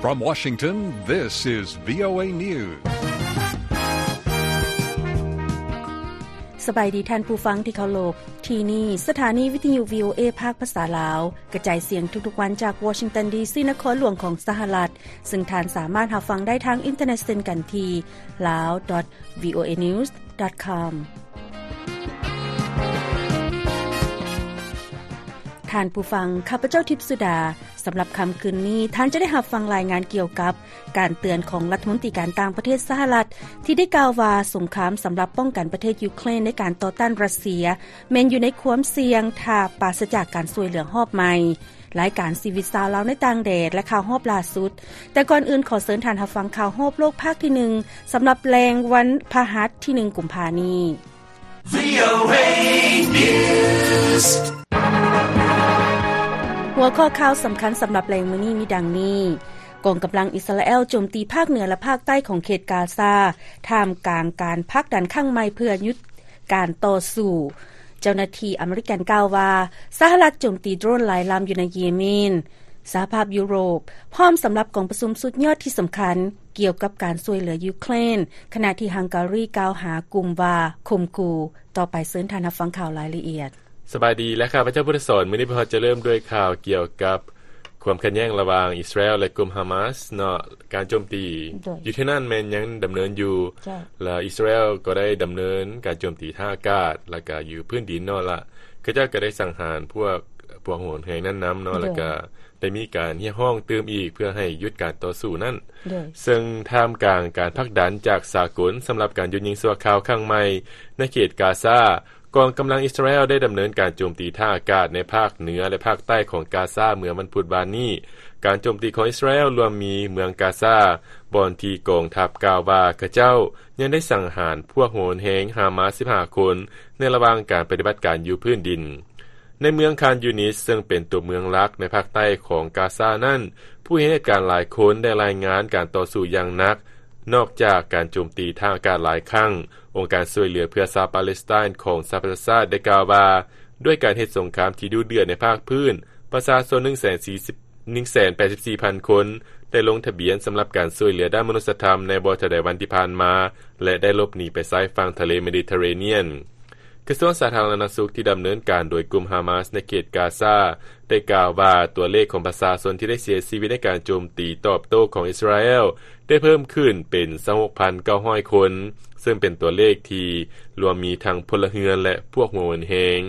From Washington, this is VOA News. ສະບາຍດີທ່ານຜູ້ຟັງທີ່ເຄົາລົບ. ທີ່ນີ້ສະຖານີວິທະຍຸ VOA ພາກພາສາລາວ ກະຈາຍສຽງທຸກໆວັນຈາກ Washington ດີ.ຊີ. ນະຄອນຫຼວງຂອງສະຫະລັດ, ເຊິ່ງທ່ານສາມາດຮັບຟັງໄດ້ທາງອິນເຕີເນັດເຊັ່ນກັນທີ່ lao dot voanews dot com. ທ່ານຜູ້ຟັງ, ຂ້າພະເຈົ້າ ທິບສຸດາ. ສຳລັບຄ່ຳຄືນນີ້, ທ່ານຈະໄດ້ຮັບຟັງລາຍງານກ່ຽວກັບການເຕືອນຂອງລັດຖະມົນຕີການຕ່າງປະເທດສະຫະລັດ ທີ່ໄດ້ກ່າວວ່າ ສົງຄາມສຳລັບປ້ອງກັນປະເທດຢູເຄຣນໃນການຕໍ່ຕ້ານຣັດເຊຍ ແມ່ນຢູ່ໃນຄວາມສ່ຽງ ຖ້າປາສະຈາກການຊ່ວຍເຫຼືອຮອບໃໝ່. ລາຍການຊີວິດຊາວລາວໃນຕ່າງແດນ ແລະ ຂ່າວຮອບລ່າສຸດ. ແຕ່ກ່ອນອື່ນ, ຂໍເຊີນທ່ານຮັບຟັງຂ່າວຮອບໂລກພາກທີໜຶ່ງ ສຳລັບແລງວັນພະຫັດທີໜຶ່ງ ກຸມພານີ້. VOA News. ຫົວຂໍ້ຂ່າວສຳຄັນສຳລັບແລງມື້ນີ້ມີດັ່ງນີ້: ກອງກຳລັງອິດສະຣາແອລໂຈມຕີພາກເໜືອ ແລະ ພາກໃຕ້ຂອງເຂດກາຊາ ທ່າມກາງການຜັກດັນຄັ້ງໃໝ່ເພື່ອຢຸດການຕໍ່ສູ້. ເຈົ້າໜ້າທີ່ອາເມລິກັນກ່າວວ່າ ສະຫະລັດໂຈມຕີໂດຣນຫຼາຍລຳຢູ່ໃນເຢເມນ. ສະຫະພາບຢູໂຣບ ພ້ອມສຳລັບກອງປະຊຸມສຸດຍອດທີ່ສຳຄັນ ກ່ຽວກັບການຊ່ວຍເຫຼືອຢູເຄຣນ, ຂະນະທີ່ຮັງກາຣີກ່າວຫາກຸ່ມວ່າຂົ່ມຂູ່. ຕໍ່ໄປເຊີນທ່ານຮັບຟັງຂ່າວລາຍລະອຽດ. ສະບາຍດີ ແລະ ຂ້າພະເຈົ້າ ພຸດທະສອນ. ມື້ນີ້ພວກເຮົາຈະເລີ່ມດ້ວຍຂ່າວກ່ຽວກັບຄວາມຂັດແຍ່ງລະຫວ່າງອິດສະຣາແອລ ແລະ ກຸ່ມຮາມາສເນາະ. ການໂຈມຕີ ໂດຍ ຢູ່ທີ່ນັ້ນແມ່ນຍັງດຳເນີນຢູ່ ເຈົ້າ ແລະ ອິດສະຣາແອລກໍໄດ້ດຳເນີນການໂຈມຕີທາງອາກາດ ແລະ ກະຢູ່ພື້ນດິນເນາະ ລະເຂົາເຈົ້າກໍໄດ້ສັງຫານພວກ ພວກໂຫດແຮງນັ້ນນຳເນາະ ໂດຍ ແລະ ກະ ໄດ້ມີການຮຽກຮ້ອງຕື່ມອີກເພື່ອໃຫ້ຢຸດການຕໍ່ສູ້ນັ້ນ ໂດຍ ເຊິ່ງທ່າມກາງການຜັກດັນຈາກສາກົນສຳລັບການຢຸດຍິງຊົ່ວຄາວຄັ້ງໃໝ່ໃນເຂດກາຊາ, ກອງກຳລັງອິດສະຣາແອລໄດ້ດຳເນີນການໂຈມຕີທາງອາກາດໃນພາກເໜືອ ແລະ ພາກໃຕ້ຂອງກາຊາເມື່ອວັນພຸດວານນີ້. ການໂຈມຕີຂອງອິດສະຣາແອລລວມມີເມືອງກາຊາ, ບ່ອນທີ່ກອງທັບກ່າວວ່າເຂົາເຈົ້າຍັງໄດ້ສັງຫານພວກໂຫດແຮງຮາມາສສິບຫ້າຄົນ ໃນລະຫວ່າງການປະຕິບັດການຢູ່ພື້ນດິນ. ໃນເມືອງຄານຢູນິດ ເຊິ່ງເປັນຕົວເມືອງຫຼັກໃນພາກໃຕ້ຂອງກາຊານັ້ນ, ຜູ້ເຫັນເຫດການຫຼາຍຄົນໄດ້ລາຍງານການຕໍ່ສູ້ຢ່າງໜັກ. ນອກຈາກການໂຈມຕີທາງອາກາດຫຼາຍຄັ້ງ, ອົງການຊ່ວຍເຫຼືອເພື່ອຊາວປາເລສໄຕນ໌ຂອງສະຫະປະຊາຊາດໄດ້ກ່າວວ່າ ດ້ວຍການເຮັດສົງຄາມທີ່ດຸເດືອດໃນພາກພື້ນ, ປະຊາຊົນໜຶ່ງແສນສີ່ສິບ ໜຶ່ງແສນແປດສິບສີ່ພັນຄົນ ໄດ້ລົງທະບຽນສຳລັບການຊ່ວຍເຫຼືອດ້ານມະນຸດສະທຳໃນບໍ່ເທົ່າໃດວັນທີ່ຜ່ານມາ ແລະ ໄດ້ຫຼົບໜີໄປຊາຍຝັ່ງທະເລເມດິເຕເຣນຽນ. ກະຊວງສາທາລະນະສຸກທີ່ດຳເນີນການໂດຍກຸ່ມຮາມາສໃນເຂດກາຊາ ໄດ້ກ່າວວ່າຕົວເລກຂອງປະຊາຊົນທີ່ໄດ້ເສຍຊີວິດໃນການໂຈມຕີຕອບໂຕ້ຂອງອິດສະຣາແອລ ໄດ້ເພີ່ມຂຶ້ນເປັນຊາວຫົກພັນເກົ້າຮ້ອຍຄົນ, ເຊິ່ງເປັນຕົວເລກທີ່ລວມມີທັງພົນລະເຮືອນ ແລະ ພວກຫົວໂຫນແຮງ.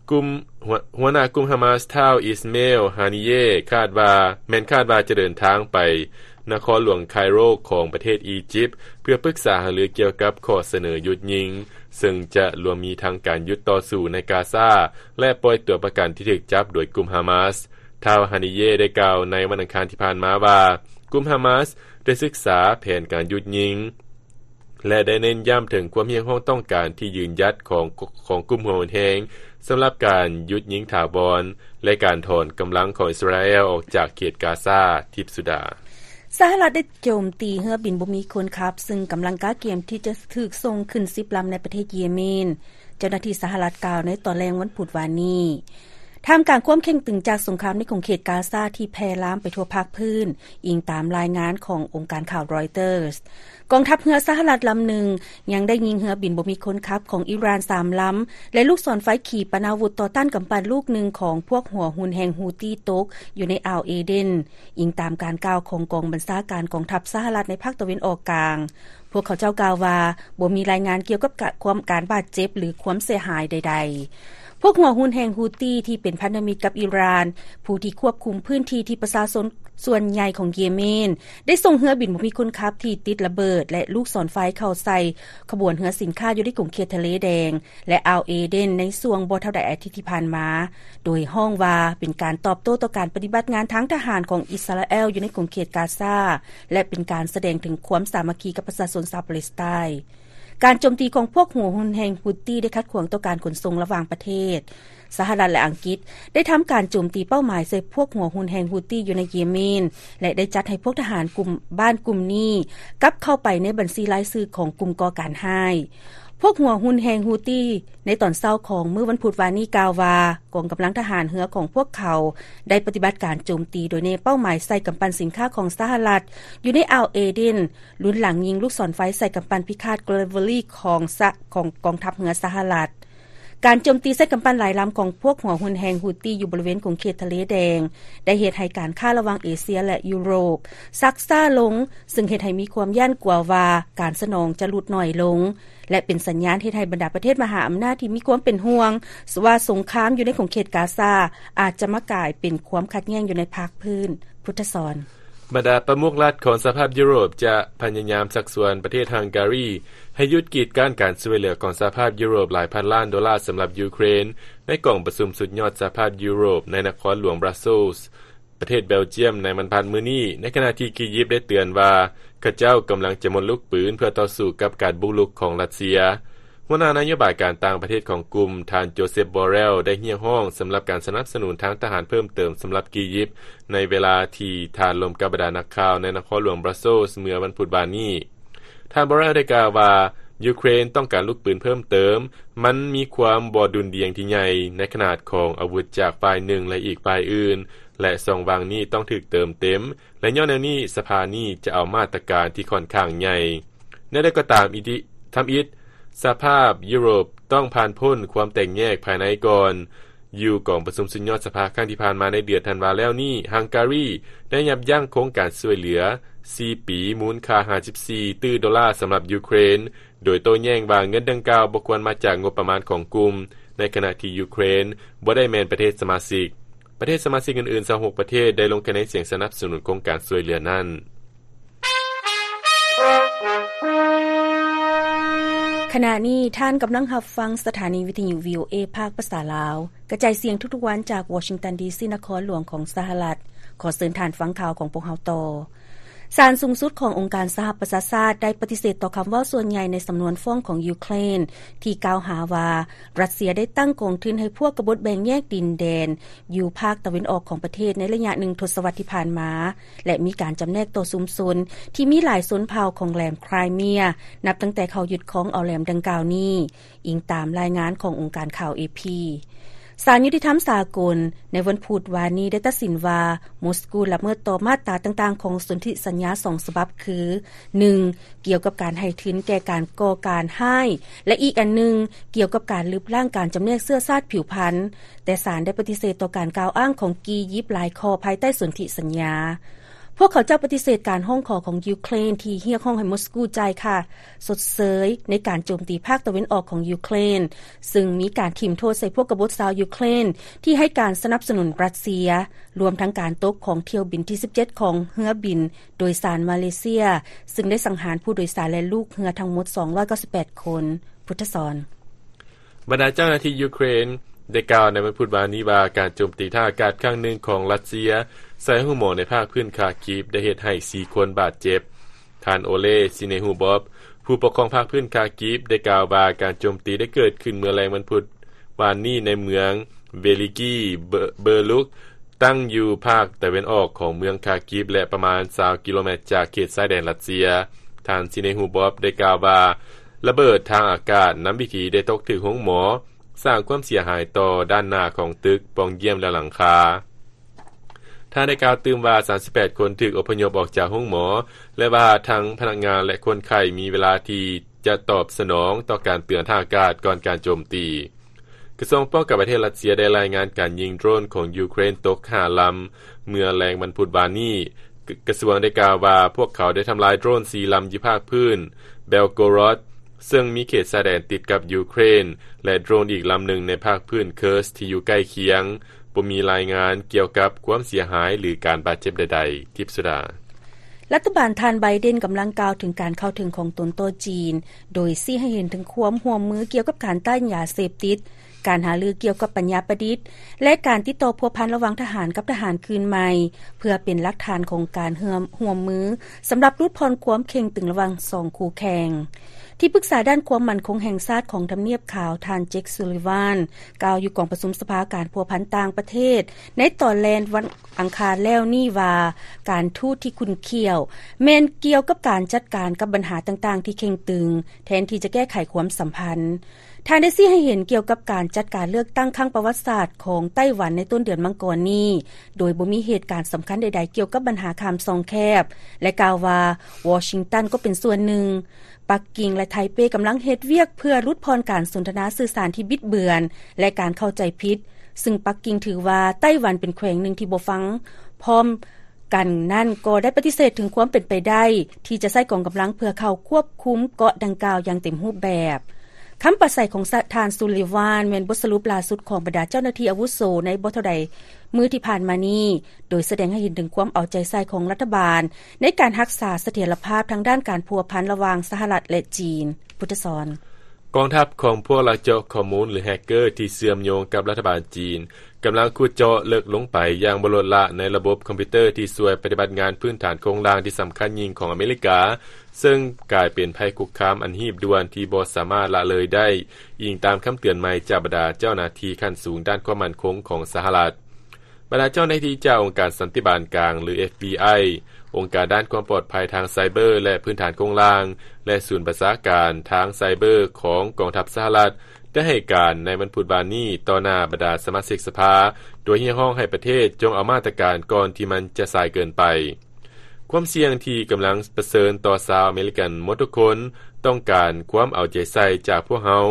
ກຸ່ມ ຫົວ ຫົວໜ້າກຸ່ມຮາມາສ ທ້າວ ອິສເມລ ຮານີເຢ ຄາດວ່າ ແມ່ນຄາດວ່າຈະເດີນທາງໄປນະຄອນຫຼວງໄຄໂຣຂອງປະເທດອີຢິບ ເພື່ອປຶກສາຫາລືກ່ຽວກັບຂໍ້ສະເໜີຢຸດຍິງ, ເຊິ່ງຈະລວມມີທັງການຢຸດຕໍ່ສູ້ໃນກາຊາ ແລະ ປ່ອຍຕົວປະກັນທີ່ຖືກຈັບໂດຍກຸ່ມຮາມາສ. ທ້າວ ຮານີເຢ ໄດ້ກ່າວໃນວັນອັງຄານທີ່ຜ່ານມາວ່າ ກຸ່ມຮາມາສໄດ້ສຶກສາແຜນການຢຸດຍິງ ແລະ ໄດ້ເນັ້ນຢ້ຳເຖິງຄວາມຮຽກຮ້ອງຕ້ອງການທີ່ຢືນຢັດຂອງ ຂອງກຸ່ມຫົວໂຫນແຮງ ສຳລັບການຢຸດຍິງຖາວອນ ແລະ ການຖອນກຳລັງຂອງອິດສະຣາແອລອອກຈາກເຂດກາຊາ. ທິບສຸດາ. ສະຫະລັດໄດ້ໂຈມຕີເຮືອບິນບໍ່ມີຄົນຂັບ ເຊິ່ງກຳລັງກະກຽມທີ່ຈະຖືກສົ່ງຂຶ້ນສິບລຳໃນປະເທດເຢເມນ, ເຈົ້າໜ້າທີ່ສະຫະລັດກ່າວໃນຕອນແລງວັນພຸດວານນີ້. ທ່າມກາງຄວາມເຄັ່ງຕຶງຈາກສົງຄາມໃນຂົງເຂດກາຊາທີ່ແຜ່ລາມໄປທົ່ວພາກພື້ນ, ອີງຕາມລາຍງານຂອງອົງການຂ່າວຣອຍເຕີສ. ກອງທັບເຮືອສະຫະລັດລຳໜຶ່ງຍັງໄດ້ຍິງເຮືອບິນບໍ່ມີຄົນຂັບຂອງອີຣານສາມລຳ ແລະ ລູກສອນໄຟຂີປະນາວຸດຕໍ່ຕ້ານກຳປັ່ນລູກໜຶ່ງຂອງພວກຫົວຮຸນແຮງຮູ້ຕີຕົກຢູ່ໃນອ່າວເອເດນ, ອີງຕາມການກ່າວຂອງກອງບັນຊາການກອງທັບສະຫະລັດໃນພາກຕາເວັນອອກກາງ. ພວກເຂົາເຈົ້າກ່າວວ່າ ບໍ່ມີລາຍງານກ່ຽວກັບກະ ຄວາມ ການບາດເຈັບ ຫຼື ຄວາມເສຍຫາຍໃດໆ. ພວກຫົວຮຸນແຮງຮູ້ຕີທີ່ເປັນພັນທະມິດກັບອີຣານ, ຜູ້ທີ່ຄວບຄຸມພື້ນທີ່ທີ່ປະຊາຊົນສ່ວນໃຫຍ່ຂອງເຢເມນ ໄດ້ສົ່ງເຮືອບິນບໍ່ມີຄົນຂັບທີ່ຕິດລະເບີດ ແລະ ລູກສອນໄຟເຂົ້າໃສ່ຂະບວນເຮືອສິນຄ້າຢູ່ໃນຂົງເຂດທະເລແດງ ແລະ ອ່າວເອເດນ ໃນຊ່ວງບໍ່ເທົ່າໃດອາທິດທີ່ຜ່ານມາ, ໂດຍຮ້ອງວ່າເປັນການຕອບໂຕ້ຕໍ່ການປະຕິບັດງານທາງທະຫານຂອງອິດສະຣາແອລຢູ່ໃນຂົງເຂດກາຊາ ແລະ ເປັນການສະແດງເຖິງຄວາມສາມັກຄີກັບປະຊາຊົນຊາວປາເລສໄຕນ໌. ການໂຈມຕີຂອງພວກຫົວຮຸນແຮງຮຸດຕີໄດ້ຂັດຂວາງຕໍ່ການຂົນສົ່ງລະຫວ່າງປະເທດ. ສະຫະລັດ ແລະ ອັງກິດໄດ້ທຳການໂຈມຕີເປົ້າໝາຍໃສ່ພວກຫົວຮຸນແຮງຮຸດຕີຢູ່ໃນເຢເມນ ແລະ ໄດ້ຈັດໃຫ້ພວກທະຫານກຸ່ມ ບ້ານກຸ່ມນີ້ກັບເຂົ້າໄປໃນບັນຊີລາຍຊື່ຂອງກຸ່ມກໍ່ການຮ້າຍ. ພ ພວກຫົວຮຸ່ນແຫ່ງຮູ້ຕີ ໃນຕອນເຊົ້າຂອງມື້ວັນພຸດວານນີ້ກ່າວວ່າ ກອງກຳລັງທະຫານເຮືອຂອງພວກເຂົາ ໄດ້ປະຕິບັດການໂຈມຕີໂດຍແນເປົ້າໝາຍໃສ່ກຳປັ່ນສິນຄ້າຂອງສະຫະລັດ ຢູ່ໃນອ່າວເອເດນ, ລຸນຫຼັງຍິງລູກສອນໄຟໃສ່ກຳປັ່ນພິຄາດ Gravely ຂອງສະ ຂອງກອງທັບເຮືອສະຫະລັດ. ການໂຈມຕີໃສ່ກຳປັ່ນຫຼາຍລຳຂອງພວກຫົວຮຸ່ນແຫ່ງຮູ້ຕີຢູ່ບໍລິເວນຂົງເຂດທະເລແດງ ໄດ້ເຮັດໃຫ້ການຄ້າລະຫວ່າງເອເຊຍ ແລະ ຢູໂຣບຊັກຊ້າລົງ, ເຊິ່ງເຮັດໃຫ້ມີຄວາມຢ້ານກົວວ່າການສະໜອງຈະຫຼຸດໜ້ອຍລົງ ແລະ ເປັນສັນຍານເຮັດໃຫ້ບັນດາປະເທດມະຫາອຳນາດທີ່ມີຄວາມເປັນຫ່ວງວ່າສົງຄາມຢູ່ໃນຂົງເຂດກາຊາ ອາດຈະມາກາຍເປັນຄວາມຂັດແຍ່ງຢູ່ໃນພາກພື້ນ. ພຸດທະສອນ. ບັນດາປະມຸກລັດຂອງສະຫະພາບຢູໂຣບຈະພະຍາຍາມຊັກຊວນປະເທດຮັງກາຣີ ໃຫ້ຢຸດກີດກັ້ນການຊ່ວຍເຫຼືອຂອງສະຫະພາບຢູໂຣບຫຼາຍພັນລ້ານໂດລາສຳລັບຢູເຄຣນ ໃນກອງປະຊຸມສຸດຍອດສະຫະພາບຢູໂຣບໃນນະຄອນຫຼວງບຣັສເຊລ ປະເທດເບລຈຽມ ໃນວັນພັດມື້ນີ້, ໃນຂະນະທີ່ອີຢິບໄດ້ເຕືອນວ່າ ເຂົາເຈົ້າກຳລັງຈະໝົດລູກປືນເພື່ອຕໍ່ສູ້ກັບການບຸກລຸກຂອງຣັດເຊຍ. ຫົວໜ້ານະໂຍບາຍການຕ່າງປະເທດຂອງກຸ່ມ, ທ່ານ ໂຈເຊັບ ບໍເຣລ ໄດ້ຮຽກຮ້ອງສຳລັບການສະໜັບສະໜູນທາງທະຫານເພີ່ມເຕີມສຳລັບອີຢິບ, ໃນເວລາທີ່ທ່ານລົມກັບບັນດານັກຂ່າວໃນນະຄອນຫຼວງບຣັສເຊລເມື່ອວັນພຸດວານນີ້. ທ່ານ ບໍເຣລ ໄດ້ກ່າວວ່າ ຢູເຄຣນຕ້ອງການລູກປືນເພີ່ມເຕີມ, ມັນມີຄວາມບໍ່ດຸ່ນດ່ຽງທີ່ໃຫຍ່ໃນຂະໜາດຂອງອາວຸດຈາກຝ່າຍໜຶ່ງ ແລະ ອີກຝ່າຍອື່ນ, ແລະ ຊ່ອງວ່າງນີ້ຕ້ອງຖືກເຕີມເຕັມ, ແລະ ຍ້ອນແນວນີ້ ສະພານີ້ຈະເອົາມາດຕະການທີ່ຂ້ອນຂ້າງໃຫຍ່. ແນວໃດກໍຕາມ, ອີ ທຳອິດ ສະຫະພາບຢູໂຣບຕ້ອງຜ່ານພົ້ນຄວາມແຕກແຍກພາຍໃນກ່ອນ. ຢູ່ກອງປະຊຸມສຸດຍອດສະພາຄັ້ງທີ່ຜ່ານມາໃນເດືອນທັນວາແລ້ວນີ້, ຮັງກາຣີໄດ້ຍັບຢັ້ງໂຄງການຊ່ວຍເຫຼືອສີ່ປີ ມູນຄ່າຫ້າສິບສີ່ຕື້ໂດລາສຳລັບຢູເຄຣນ, ໂດຍໂຕ້ແຍ້ງວ່າເງິນດັ່ງກ່າວບໍ່ຄວນມາຈາກງົບປະມານຂອງກຸ່ມ, ໃນຂະນະທີ່ຢູເຄຣນບໍ່ໄດ້ແມ່ນປະເທດສະມາຊິກ. ປະເທດສະມາຊິກອື່ນໆຊາວຫົກປະເທດໄດ້ລົງຄະແນນສຽງສະໜັບສະໜູນໂຄງການຊ່ວຍເຫຼືອນັ້ນ. ຂະນະນີ້ທ່ານກຳລັງຮັບຟັງສະຖານີວິທະຍຸ ວີໂອເອ ພາກພາສາລາວ ກະຈາຍສຽງທຸກໆວັນຈາກວໍຊິງຕັນ ດີຊີ ນະຄອນຫຼວງຂອງສະຫະລັດ. ຂໍເຊີນທ່ານຟັງຂ່າວຂອງພວກເຮົາຕໍ່. ສານສູງສຸດຂອງອົງການສະຫະປະຊາຊາດໄດ້ປະຕິເສດຕໍ່ຄຳເວົ້າສ່ວນໃຫຍ່ໃນສຳນວນຟ້ອງຂອງຢູເຄຣນ ທີ່ກ່າວຫາວ່າຣັດເຊຍໄດ້ຕັ້ງກອງທຶນໃຫ້ພວກກະບົດແບ່ງແຍກດິນແດນຢູ່ພາກຕາເວັນອອກຂອງປະເທດໃນໄລຍະໜຶ່ງທົດສະວັດທີ່ຜ່ານມາ ແລະ ມີການຈຳແນກຕໍ່ຊຸມຊົນທີ່ມີຫຼາຍຊົນເຜົ່າຂອງແຫຼມໄຄຣເມຍ ນັບຕັ້ງແຕ່ເຂົາຍຶດຄອງເອົາແຫຼມດັ່ງກ່າວນີ້, ອີງຕາມລາຍງານຂອງອົງການຂ່າວ ເອ ພີ. ສານຍຸຕິທຳສາກົນໃນວັນພຸດວານນີ້ໄດ້ຕັດສິນວ່າ ມົສກູລະເມີດຕໍ່ມາດຕາຕ່າງໆຂອງສົນທິສັນຍາສອງສະບັບຄື ໜຶ່ງ ກ່ຽວກັບການໃຫ້ທຶນແກ່ການກໍ່ການຮ້າຍ ແລະ ອີກອັນໜຶ່ງ ກ່ຽວກັບການລຶບລ້າງການຈຳແນກເຊື້ອຊາດຜິວພັນ, ແຕ່ສານໄດ້ປະຕິເສດຕໍ່ການກ່າວອ້າງຂອງອີຢິບຫຼາຍຂໍ້ພາຍໃຕ້ສົນທິສັນຍາ. ພວກເຂົາເຈົ້າປະຕິເສດການຮ້ອງຂໍຂອງຢູເຄຣນທີ່ຮຽກຮ້ອງໃຫ້ມົສກູຈ່າຍຄ່າຊົດເຊີຍໃນການໂຈມຕີພາກຕາເວັນອອກຂອງຢູເຄຣນ, ເຊິ່ງມີການຖິ້ມໂທດໃສ່ພວກກະບົດຊາວຢູເຄຣນທີ່ໃຫ້ການສະໜັບສະໜູນຣັດເຊຍ, ລວມທັງການຕົກຂອງຖ້ຽວບິນທີສິບເຈັດຂອງເຮືອບິນໂດຍສານມາເລເຊຍ, ເຊິ່ງໄດ້ສັງຫານຜູ້ໂດຍສານ ແລະ ລູກເຮືອທັງໝົດສອງຮ້ອຍເກົ້າສິບແປດຄົນ. ພຸດທະສອນ. ບັນດາເຈົ້າໜ້າທີ່ຢູເຄຣນໄດ້ກ່າວໃນວັນພຸດວານນີ້ວ່າ ການໂຈມຕີທາງອາກາດຄັ້ງໜຶ່ງຂອງຣັດເຊຍໃສ່ໂຮງໝໍໃນພາກພື້ນຄາກິບໄດ້ເຮັດໃຫ້ສີ່ຄົນບາດເຈັບ. ທ່ານ ໂອເລ ຊິເນຮູບອບ ຜູ້ປົກຄອງພາກພື້ນຄາກິບ ໄດ້ກ່າວວ່າ ການໂຈມຕີໄດ້ເກີດຂຶ້ນເມື່ອແລງວັນພຸດວານນີ້ໃນເມືອງເວລິກີ ເບີ ເບີລຸກ ຕັ້ງຢູ່ພາກຕາເວັນອອກຂອງເມືອງຄາກິບ ແລະ ປະມານຊາວກິໂລແມັດຈາກເຂດຊາຍແດນຣັດເຊຍ. ທ່ານ ຊິເນຮູບອບ ໄດ້ກ່າວວ່າ ລະເບີດທາງອາກາດນຳວິຖີໄດ້ຕົກຖືກໂຮງໝໍ, ສ້າງຄວາມເສຍຫາຍຕໍ່ດ້ານໜ້າຂອງຕຶກ, ປ່ອງຢ້ຽມ ແລະ ຫຼັງຄາ. ທ່ານໄດ້ກ່າວຕື່ມວ່າ ສາມສິບແປດຄົນຖືກອົບພະຍົບອອກຈາກໂຮງໝໍ ແລະ ວ່າທັງພະນັກງານ ແລະ ຄົນໄຂ້ມີເວລາທີ່ຈະຕອບສະໜອງຕໍ່ການເຕືອນທາງອາກາດກ່ອນການໂຈມຕີ. ກະຊວງປ້ອງກັນປະເທດຣັດເຊຍໄດ້ລາຍງານການຍິງໂດຣນຂອງຢູເຄຣນຕົກຫ້າລຳເມື່ອແລງວັນພຸດວານນີ້. ກະ ກະຊວງໄດ້ກ່າວວ່າ ພວກເຂົາໄດ້ທຳລາຍໂດຣນສີ່ລຳຢູ່ພາກພື້ນເບລໂກຣອດ ເຊິ່ງມີເຂດຊາຍແດນຕິດກັບຢູເຄຣນ ແລະ ໂດຣນອີກລຳໜຶ່ງໃນພາກພື້ນເຄີສທີ່ຢູ່ໃກ້ຄຽງ. ບໍ່ມີລາຍງານກ່ຽວກັບຄວາມເສຍຫາຍ ຫຼື ການບາດເຈັບໃດໆ. ທິບສຸດາ. ລັດຖະບານທ່ານໄບເດັນກຳລັງກ່າວເຖິງການເຂົ້າເຖິງຂອງຕົນຕໍ່ຈີນ, ໂດຍຊີ້ໃຫ້ເຫັນເຖິງຄວາມຮ່ວມມືກ່ຽວກັບການຕ້ານຢາເສບຕິດ, ການຫາລືກ່ຽວກັບປັນຍາປະດິດ ແລະ ການຕິດຕໍ່ພົວພັນລະຫວ່າງທະຫານກັບທະຫານຄືນໃໝ່, ເພື່ອເປັນຫຼັກຖານຂອງການຮ່ວມ ຮ່ວມມືສຳລັບຫຼຸດຜ່ອນຄວາມເຄັ່ງຕຶງລະຫວ່າງສອງຄູ່ແຂ່ງ. ທີ່ປຶກສາດ້ານຄວາມໝັ້ນຄົງແຫ່ງຊາດຂອງທຳນຽບຂາວ ທ່ານ ເຈັກ ຊູລີວານ ກ່າວຢູ່ກອງປະຊຸມສະພາການພົວພັນຕ່າງປະເທດ ໃນຕອນແລງວັນອັງຄານແລ້ວນີ້ວ່າ ການທູດທີ່ຂຸ້ນຂ້ຽວ ແມ່ນກ່ຽວກັບການຈັດການກັບບັນຫາຕ່າງໆທີ່ເຄັ່ງຕຶງ ແທນທີ່ຈະແກ້ໄຂຄວາມສຳພັນ. ທ່ານໄດ້ຊີ້ໃຫ້ເຫັນກ່ຽວກັບການຈັດການເລືອກຕັ້ງຄັ້ງປະຫວັດສາດຂອງໄຕ້ຫວັນໃນຕົ້ນເດືອນມັງກອນນີ້ ໂດຍບໍ່ມີເຫດການສຳຄັນໃດໆກ່ຽວກັບບັນຫາຂ້າມຊ່ອງແຄບ ແລະ ກ່າວວ່າ ວໍຊິງຕັນກໍເປັນສ່ວນໜຶ່ງ. ປັກກິ່ງ ແລະ ໄທເປກຳລັງເຮັດວຽກເພື່ອຫຼຸດຜ່ອນການສົນທະນາສື່ສານທີ່ບິດເບືອນ ແລະ ການເຂົ້າໃຈຜິດ, ຊຶ່ງປັກກິ່ງຖືວ່າໄຕ້ຫວັນເປັນແຂວງໜຶ່ງທີ່ບໍ່ຟັງພ້ອມກັນນັ້ນ ກໍໄດ້ປະຕິເສດເຖິງຄວາມເປັນໄປໄດ້ທີ່ຈະໃຊ້ກອງກຳລັງເພື່ອເຂົ້າຄວບຄຸມເກາະດັ່ງກ່າວຢ່າງເຕັມຮູບແບບ. ຄຳປາໄສຂອງທ່ານ ຊູລີວານ ແມ່ນບົດສະຫຼຸບລ່າສຸດຂອງບັນດາເຈົ້າໜ້າທີ່ອາວຸໂສໃນບໍ່ເທົ່າໃດມື້ທີ່ຜ່ານມານີ້ ໂດຍສະແດງໃຫ້ເຫັນເຖິງຄວາມເອົາໃຈໃສ່ຂອງລັດຖະບານ ໃນການຮັກສາສະຖຽນລະພາບທາງດ້ານການພົວພັນລະຫວ່າງສະຫະລັດ ແລະ ຈີນ. ພຸດທະສອນ. ກອງທັບຂອງພວກລັກເຈາະຂໍ້ມູນ ຫຼື ແຮັກເກີ ທີ່ເຊື່ອມໂຍງກັບລັດຖະບານຈີນ ກຳລັງຂຸດເຈາະເລິກລົງໄປຢ່າງບໍ່ລົດລະໃນລະບົບຄອມພິວເຕີທີ່ຊ່ວຍປະຕິບັດງານພື້ນຖານໂຄງລ່າງທີ່ສຳຄັນຍິ່ງຂອງອາເມລິກາ, ເຊິ່ງກາຍເປັນໄພຄຸກຄາມອັນຮີບດ່ວນທີ່ບໍ່ສາມາດລະເລີຍໄດ້, ອີງຕາມຄຳເຕືອນໃໝ່ຈາກບັນດາເຈົ້າໜ້າທີ່ຂັ້ນສູງດ້ານຄວາມໝັ້ນຄົງຂອງສະຫະລັດ. ບັນດາເຈົ້າໜ້າທີ່ຈາກອົງການສັນຕິບານກາງ ຫຼື ເອັຟບີໄອ, ອົງການດ້ານຄວາມປອດໄພທາງໄຊເບີ ແລະ ພື້ນຖານໂຄງລ່າງ ແລະ ສູນບັນຊາການທາງໄຊເບີຂອງກອງທັບສະຫະລັດ ໄດ້ໃຫ້ການໃນວັນພຸດວານນີ້ຕໍ່ໜ້າບັນດາສະມາຊິກສະພາ ໂດຍຮຽກຮ້ອງໃຫ້ປະເທດຈົ່ງເອົາມາດຕະການກ່ອນທີ່ມັນຈະສາຍເກີນໄປ. ຄວາມສ່ຽງທີ່ກຳລັງປະເຊີນຕໍ່ຊາວອາເມລິກັນໝົດທຸກຄົນ ຕ້ອງການຄວາມເອົາໃຈໃສ່ຈາກພວກເຮົາ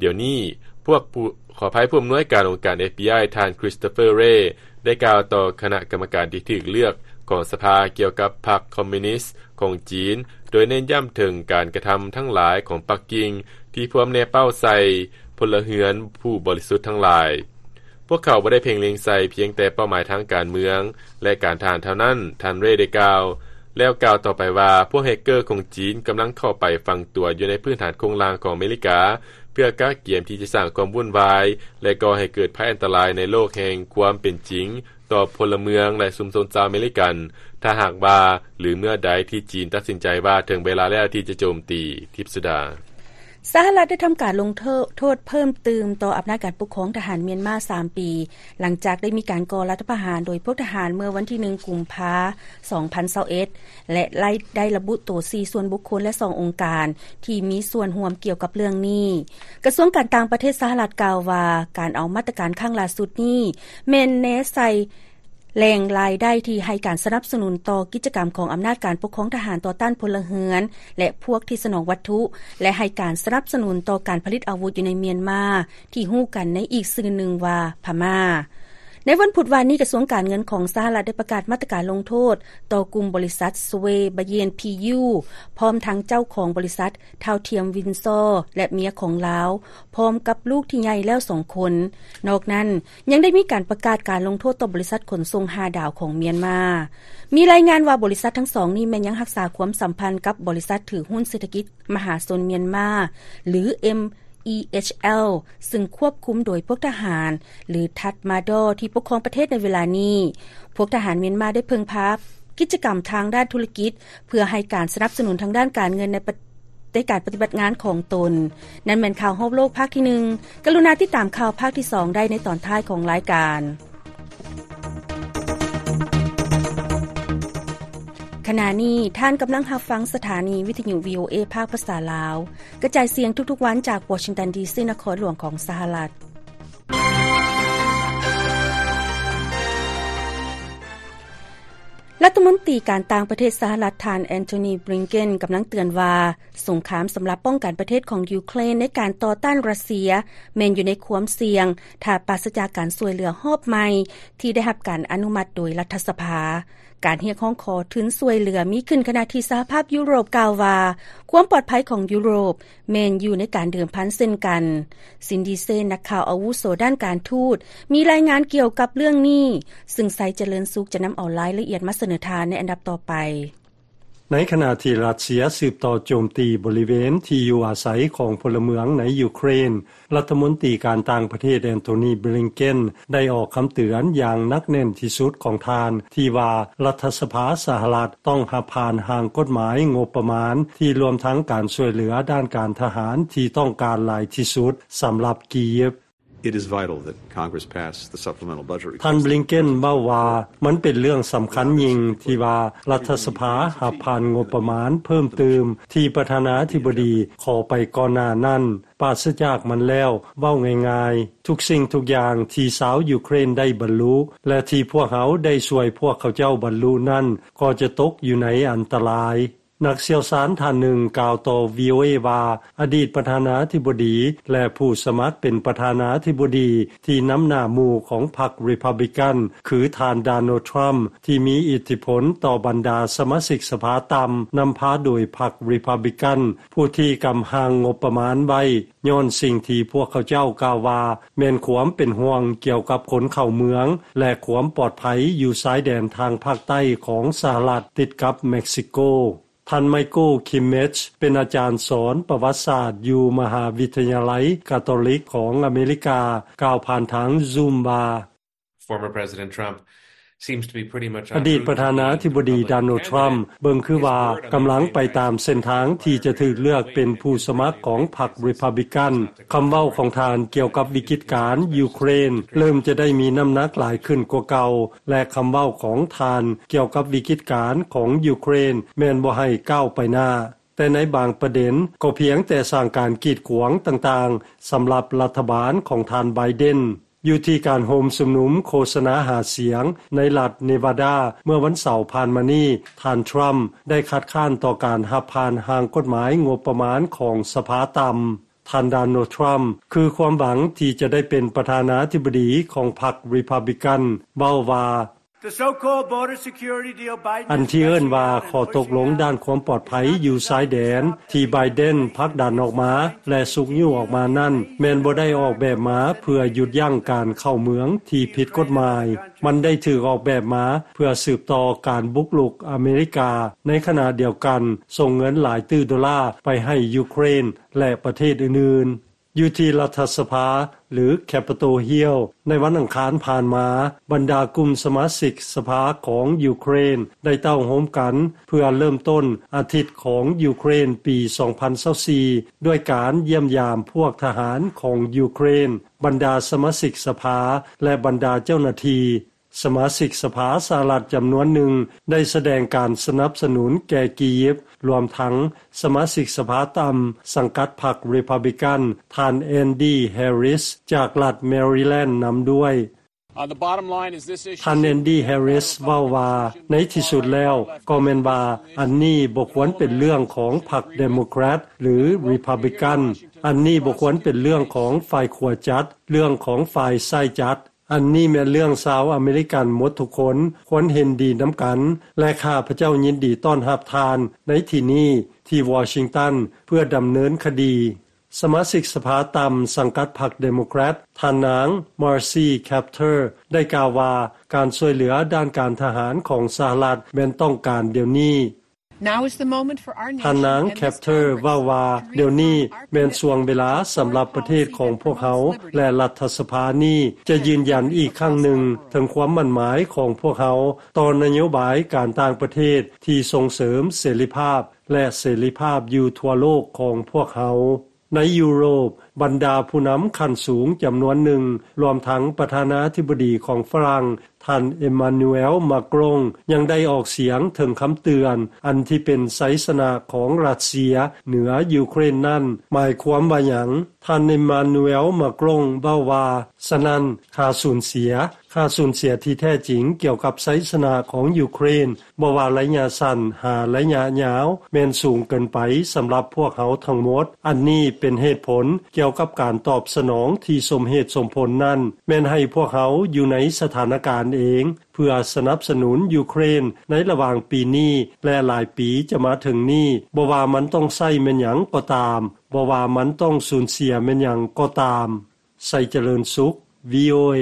ດຽວນີ້. ພວກຜູ້, ຂໍອະໄພ, ຜູ້ອຳນວຍການອົງການ ເອັຟບີໄອ ທ່ານ ຄຣິສໂຕເຟີ ເຣ ໄດ້ກ່າວຕໍ່ຄະນະກຳມະການທີ່ຖືກເລືອກຂອງສະພາກ່ຽວກັບພັກຄອມມິວນິສຂອງຈີນ, ໂດຍເນັ້ນຢ້ຳເຖິງການກະທຳທັງຫຼາຍຂອງປັກກິ່ງທີ່ພວມແນເປົ້າໃສ່ພົນລະເຮືອນຜູ້ບໍລິສຸດທັງຫຼາຍ. ພວກເຂົາບໍ່ໄດ້ເພັ່ງເລັງໃສ່ພຽງແຕ່ເປົ້າໝາຍທາງການເມືອງ ແລະ ການທະຫານເທົ່ານັ້ນ, ທ່ານ ເຣ ໄດ້ກ່າວ, ແລ້ວກ່າວຕໍ່ໄປວ່າ ພວກແຮັກເກີຂອງຈີນກຳລັງເຂົ້າໄປຝັງຕົວຢູ່ໃນພື້ນຖານໂຄງລ່າງຂອງອາເມລິກາ ເພື່ອກະກຽມທີ່ຈະສ້າງຄວາມວຸ້ນວາຍ ແລະ ກໍ່ໃຫ້ເກີດໄພອັນຕະລາຍໃນໂລກແຫ່ງຄວາມເປັນຈິງຕໍ່ພົນລະເມືອງ ແລະ ຊຸມຊົນຊາວອາເມລິກັນ ຖ້າຫາກວ່າ ຫຼື ເມື່ອໃດທີ່ຈີນຕັດສິນໃຈວ່າເຖິງເວລາແລ້ວທີ່ຈະໂຈມຕີ. ທິບສຸດາ. ສະຫະລັດໄດ້ທຳການລົງໂທດເພີ່ມຕື່ມຕໍ່ອຳນາດການປົກຄອງທະຫານມຽນມາສາມປີ ຫຼັງຈາກໄດ້ມີການກໍ່ລັດຖະປະຫານໂດຍພວກທະຫານເມື່ອວັນທີໜຶ່ງ ກຸມພາ ສອງພັນຊາວເອັດ ແລະ ໄດ້ລະບຸໂຕສີ່ສ່ວນບຸກຄົນ ແລະ ສອງອົງການທີ່ມີສ່ວນຮ່ວມກ່ຽວກັບເລື່ອງນີ້. ກະຊວງການຕ່າງປະເທດສະຫະລັດກ່າວວ່າ ການເອົາມາດຕະການຄັ້ງລ່າສຸດນີ້ ແມ່ນແນໃສ່ ແຫຼ່ງລາຍໄດ້ທີ່ໃຫ້ການສະໜັບສະໜູນຕໍ່ກິດຈະກຳຂອງອຳນາດການປົກຄອງທະຫານຕໍ່ຕ້ານພົນລະເຮືອນ ແລະ ພວກທີ່ສະໜອງວັດຖຸ ແລະ ໃຫ້ການສະໜັບສະໜູນຕໍ່ການຜະລິດອາວຸດຢູ່ໃນມຽນມາ ທີ່ຮູ້ກັນໃນອີກຊື່ໜຶ່ງວ່າພະມ້າ. ໃນວັນພຸດວານນີ້, ກະຊວງການເງິນຂອງສະຫະລັດໄດ້ປະກາດມາດຕະການລົງໂທດຕໍ່ກຸ່ມບໍລິສັດ ສະເວບາເຢນ ພີຢູ ພ້ອມທັງເຈົ້າຂອງບໍລິສັດ ທ້າວທຽມ ວິນຊໍ ແລະ ເມຍຂອງລາວ ພ້ອມກັບລູກທີ່ໃຫຍ່ແລ້ວສອງຄົນ. ນອກນັ້ນ, ຍັງໄດ້ມີການປະກາດການລົງໂທດຕໍ່ບໍລິສັດຂົນສົ່ງຫ້າດາວຂອງມຽນມາ. ມີລາຍງານວ່າບໍລິສັດທັງສອງນີ້ແມ່ນຍັງຮັກສາຄວາມສຳພັນກັບບໍລິສັດຖືຫຸ້ນເສດຖະກິດມະຫາຊົນມຽນມາ ຫຼື ເອັມອີເອັດຊແອລ ຊຶ່ງຄວບຄຸມໂດຍພວກທະຫານ ຫຼື ທັດມາດໍ ທີ່ປົກຄອງປະເທດໃນເວລານີ້. ພວກທະຫານມຽນມາໄດ້ເພິ່ງພາກິດຈະກຳທາງດ້ານທຸລະກິດ ເພື່ອໃຫ້ການສະໜັບສະໜູນທາງດ້ານການເງິນໃນປະ ໃນການປະຕິບັດງານຂອງຕົນ. ນັ້ນແມ່ນຂ່າວຮອບໂລກພາກທີໜຶ່ງ. ກະລຸນາຕິດຕາມຂ່າວພາກທີສອງໄດ້ໃນຕອນທ້າຍຂອງລາຍການ. ຂະນະນີ້ທ່ານກຳລັງຮັບຟັງສະຖານີວິທະຍຸ ວີໂອເອ ພາກພາສາລາວ, ກະຈາຍສຽງທຸກໆວັນຈາກວໍຊິງຕັນ ດີຊີ ນະຄອນຫຼວງຂອງສະຫະລັດ. ລັດຖະມົນຕີການຕ່າງປະເທດສະຫະລັດ ທ່ານ ແອນໂທນີ ບລິງເກັນ ກຳລັງເຕືອນວ່າ ສົງຄາມສຳລັບປ້ອງກັນປະເທດຂອງຢູເຄຣນໃນການຕໍ່ຕ້ານຣັດເຊຍ ແມ່ນຢູ່ໃນຄວາມສ່ຽງ ຖ້າປາສະຈາກການຊ່ວຍເຫຼືອຮອບໃໝ່ທີ່ໄດ້ຮັບການອະນຸມັດໂດຍລັດຖະສະພາ. ການຮຽກຮ້ອງຂໍທຶນຊ່ວຍເຫຼືອມີຂຶ້ນ ຂະນະທີ່ສະຫະພາບຢູໂຣບກ່າວວ່າ ຄວາມປອດໄພຂອງຢູໂຣບ ແມ່ນຢູ່ໃນການເດີມພັນເຊັ່ນກັນ. ຊິນດີເຊນ ນັກຂ່າວອາວຸໂສດ້ານການທູດ ມີລາຍງານກ່ຽວກັບເລື່ອງນີ້, ຊຶ່ງໄຊຈະເລີນສຸກຈະນຳເອົາລາຍລະອຽດມາສະເໜີທ່ານໃນອັນດັບຕໍ່ໄປ. ໃນຂະນະທີ່ຣັດເຊຍສືບຕໍ່ໂຈມຕີບໍລິເວນທີ່ຢູ່ອາໄສຂອງພົນລະເມືອງໃນຢູເຄຣນ, ລັດຖະມົນຕີການຕ່າງປະເທດ ແອນໂທນີ ບລິງເກັນ ໄດ້ອອກຄຳເຕືອນຢ່າງໜັກແໜ້ນທີ່ສຸດຂອງທ່ານ ທີ່ວ່າລັດຖະສະພາສະຫະລັດຕ້ອງຮັບຜ່ານຮ່າງກົດໝາຍງົບປະມານ ທີ່ລວມທັງການຊ່ວຍເຫຼືອດ້ານການທະຫານທີ່ຕ້ອງການຫຼາຍທີ່ສຸດສຳລັບກີບ. It is vital that Congress pass the supplemental budget request. ທ່ານ ບລິງເກັນ ເວົ້າວ່າ ມັນເປັນເລື່ອງສຳຄັນຍິ່ງທີ່ວ່າລັດຖະສະພາຮັບຜ່ານງົບປະມານເພີ່ມຕື່ມທີ່ປະທານາທິບໍດີຂໍໄປກ່ອນໜ້ານັ້ນ. ປາສະຈາກມັນແລ້ວ, ເວົ້າງ່າຍໆ, ທຸກສິ່ງທຸກຢ່າງທີ່ຊາວຢູເຄຣນໄດ້ບັນລຸ ແລະ ທີ່ພວກເຮົາໄດ້ຊ່ວຍພວກເຂົາເຈົ້າບັນລຸນັ້ນ ກໍຈະຕົກຢູ່ໃນອັນຕະລາຍ. ນັກຊ່ຽວຊານທ່ານໜຶ່ງກ່າວຕໍ່ ວີໂອເອ ວ່າ ອະດີດປະທານາທິບໍດີ ແລະ ຜູ້ສະໝັກເປັນປະທານາທິບໍດີທີ່ນຳໜ້າໝູ່ຂອງພັກ Republican ຄືທ່ານ Donald Trump ທີ່ມີອິດທິພົນຕໍ່ບັນດາສະມາຊິກສະພາຕ່ຳ ນຳພາໂດຍພັກ Republican ຜູ້ທີ່ກຳຮ່າງງົບປະມານໄວ້ ຍ້ອນສິ່ງທີ່ພວກເຂົາເຈົ້າກ່າວວ່າ ແມ່ນຄວາມເປັນຫ່ວງກ່ຽວກັບຄົນເຂົ້າເມືອງ ແລະ ຄວາມປອດໄພຢູ່ຊາຍແດນທາງພາກໃຕ້ຂອງສະຫະລັດ ຕິດກັບເມັກຊິໂກ. ທ່ານ ໄມເຄິນ ຄິມເມດ ເປັນອາຈານສອນປະຫວັດສາດຢູ່ມະຫາວິທະຍາໄລກາໂຕລິກຂອງອາເມລິກາ ກ່າວຜ່ານທາງ Zoom ວ່າ Former President Trump seems to be pretty much ອະດີດປະທານາທິບໍດີ Donald Trump ເບິ່ງຄືວ່າກຳລັງໄປຕາມເສັ້ນທາງທີ່ຈະຖືກເລືອກເປັນຜູ້ສະໝັກຂອງພັກ Republican. ຄຳເວົ້າຂອງທ່ານກ່ຽວກັບວິກິດການຢູເຄຣນ ເລີ່ມຈະໄດ້ມີນ້ຳໜັກຫຼາຍຂຶ້ນກວ່າເກົ່າ ແລະ ຄຳເວົ້າຂອງທ່ານກ່ຽວກັບວິກິດການຂອງຢູເຄຣນ ແມ່ນບໍ່ໃຫ້ກ້າວໄປໜ້າ, ແຕ່ໃນບາງປະເດັນກໍພຽງແຕ່ສ້າງການກີດຂວາງຕ່າງໆ ສຳລັບລັດຖະບານຂອງທ່ານ ໄບເດັນ. ຢູ່ທີ່ການໂຮມຊຸມນຸມໂຄສະນາຫາສຽງໃນລັດເນວາດາ ເມື່ອວັນເສົາຜ່ານມານີ້, ທ່ານ Trump ໄດ້ຄັດຄ້ານຕໍ່ການຮັບຜ່ານຮ່າງກົດໝາຍງົບປະມານຂອງສະພາຕ່ຳ. ທ່ານ Donald Trump ຄືຄວາມຫວັງທີ່ຈະໄດ້ເປັນປະທານາທິບໍດີຂອງພັກ Republican ເວົ້າວ່າ The so-called border security deal Biden ອັນທີ່ເອີ້ນວ່າຂໍ້ຕົກລົງດ້ານຄວາມປອດໄພຢູ່ຊາຍແດນ ທີ່ໄບເດັນຜັກດັນອອກມາ ແລະ ຊຸກຍູ້ອອກມານັ້ນ ແມ່ນບໍ່ໄດ້ອອກແບບມາເພື່ອຢຸດຢັ້ງການເຂົ້າເມືອງທີ່ຜິດກົດໝາຍ. ມັນໄດ້ຖືກອອກແບບມາເພື່ອສືບຕໍ່ການບຸກລຸກອາເມລິກາ. ໃນຂະນະດຽວກັນ, ສົ່ງເງິນຫຼາຍຕື້ໂດລາໄປໃຫ້ຢູເຄຣນ ແລະ ປະເທດອື່ນໆ. ຢູ່ທີ່ລັດຖະສະພາ ຫຼື Capitol Hill ໃນວັນອັງຄານຜ່ານມາ, ບັນດາກຸ່ມສະມາຊິກສະພາຂອງຢູເຄຣນໄດ້ເຕົ້າໂຮມກັນເພື່ອເລີ່ມຕົ້ນອາທິດຂອງຢູເຄຣນປີສອງພັນຊາວສີ່ ດ້ວຍການຢ້ຽມຢາມພວກທະຫານຂອງຢູເຄຣນ, ບັນດາສະມາຊິກສະພາ ແລະ ບັນດາເຈົ້າໜ້າທີ່. ສະມາຊິກສະພາສະຫະລັດຈຳນວນໜຶ່ງໄດ້ສະແດງການສະໜັບສະໜູນແກ່ກີຢິບ, ລວມທັງສະມາຊິກສະພາຕ່ຳສັງກັດພັກ Republican ທ່ານ Andy Harris ຈາກລັດ Maryland ນຳດ້ວຍ. On the bottom line, is this issue ທ່ານ Andy Harris ເວົ້າວ່າ, ໃນທີ່ສຸດແລ້ວກໍແມ່ນວ່າ ອັນນີ້ບໍ່ຄວນເປັນເລື່ອງຂອງພັກ Democrat ຫຼື Republican. ອັນນີ້ບໍ່ຄວນເປັນເລື່ອງຂອງຝ່າຍຂວາຈັດ, ເລື່ອງຂອງຝ່າຍຊ້າຍຈັດ. ອັນນີ້ແມ່ນເລື່ອງຊາວອາເມລິກັນໝົດທຸກຄົນຄວນເຫັນດີນຳກັນ ແລະ ຂ້າພະເຈົ້າຍິນດີຕ້ອນຮັບທ່ານໃນທີ່ນີ້ທີ່ວໍຊິງຕັນ ເພື່ອດຳເນີນຄະດີ. ສະມາຊິກສະພາຕ່ຳສັງກັດພັກ Democrat ທ່ານນາງ Marcy Kaptur ໄດ້ກ່າວວ່າ ການຊ່ວຍເຫຼືອດ້ານການທະຫານຂອງສະຫະລັດແມ່ນຕ້ອງການດຽວນີ້. Now is the moment for our nation ທ່ານນາງ and this Capter Congress ເວົ້າວ່າ ດຽວນີ້ແມ່ນຊ່ວງເວລາສຳລັບປະເທດຂອງພວກເຮົາ ແລະ ລັດຖະສະພານີ້ຈະຢືນຢັນອີກຄັ້ງໜຶ່ງເຖິງຄວາມໝັ້ນໝາຍຂອງພວກເຮົາຕໍ່ນະໂຍບາຍການຕ່າງປະເທດທີ່ສົ່ງເສີມເສລີພາບ ແລະ ເສລີພາບຢູ່ທົ່ວໂລກຂອງພວກເຮົາ. ໃນຢູໂຣບ, ບັນດາຜູ້ນຳຂັ້ນສູງຈຳນວນໜຶ່ງ, ລວມທັງປະທານາທິບໍດີຂອງຝຣັ່ງ, ທ່ານ Emmanuel Macron ຍັງໄດ້ອອກສຽງເຖິງຄຳເຕືອນ ອັນທີ່ເປັນໄຊຊະນະຂອງຣັດເຊຍເໜືອຢູເຄຣນນັ້ນ ໝາຍຄວາມວ່າຫຍັງ? ທ່ານ Emmanuel Macron ເວົ້າວ່າ, ສະນັ້ນ, ຄ່າສູນເສຍ, ຄ່າສູນເສຍທີ່ແທ້ຈິງກ່ຽວກັບໄຊຊະນະຂອງຢູເຄຣນ, ບໍ່ວ່າໄລຍະສັ້ນຫາໄລຍະຍາວ ແມ່ນສູງເກີນໄປສຳລັບພວກເຮົາທັງໝົດ. ອັນນີ້ເປັນເຫດຜົນກ່ຽວກັບການຕອບສະໜອງທີ່ສົມເຫດສົມຜົນນັ້ນ ແມ່ນໃຫ້ພວກເຮົາຢູ່ໃນສະຖານະການເອງ ເພື່ອສະໜັບສະໜູນຢູເຄຣນໃນລະຫວ່າງປີນີ້ ແລະ ຫຼາຍປີຈະມາເຖິງນີ້, ບໍ່ວ່າມັນຕ້ອງໃຊ້ແມ່ນຫຍັງກໍຕາມ, ບໍ່ວ່າມັນຕ້ອງສູນເສຍແມ່ນຫຍັງກໍຕາມ. ໄຊຈະເລີນສຸກ ວີໂອເອ.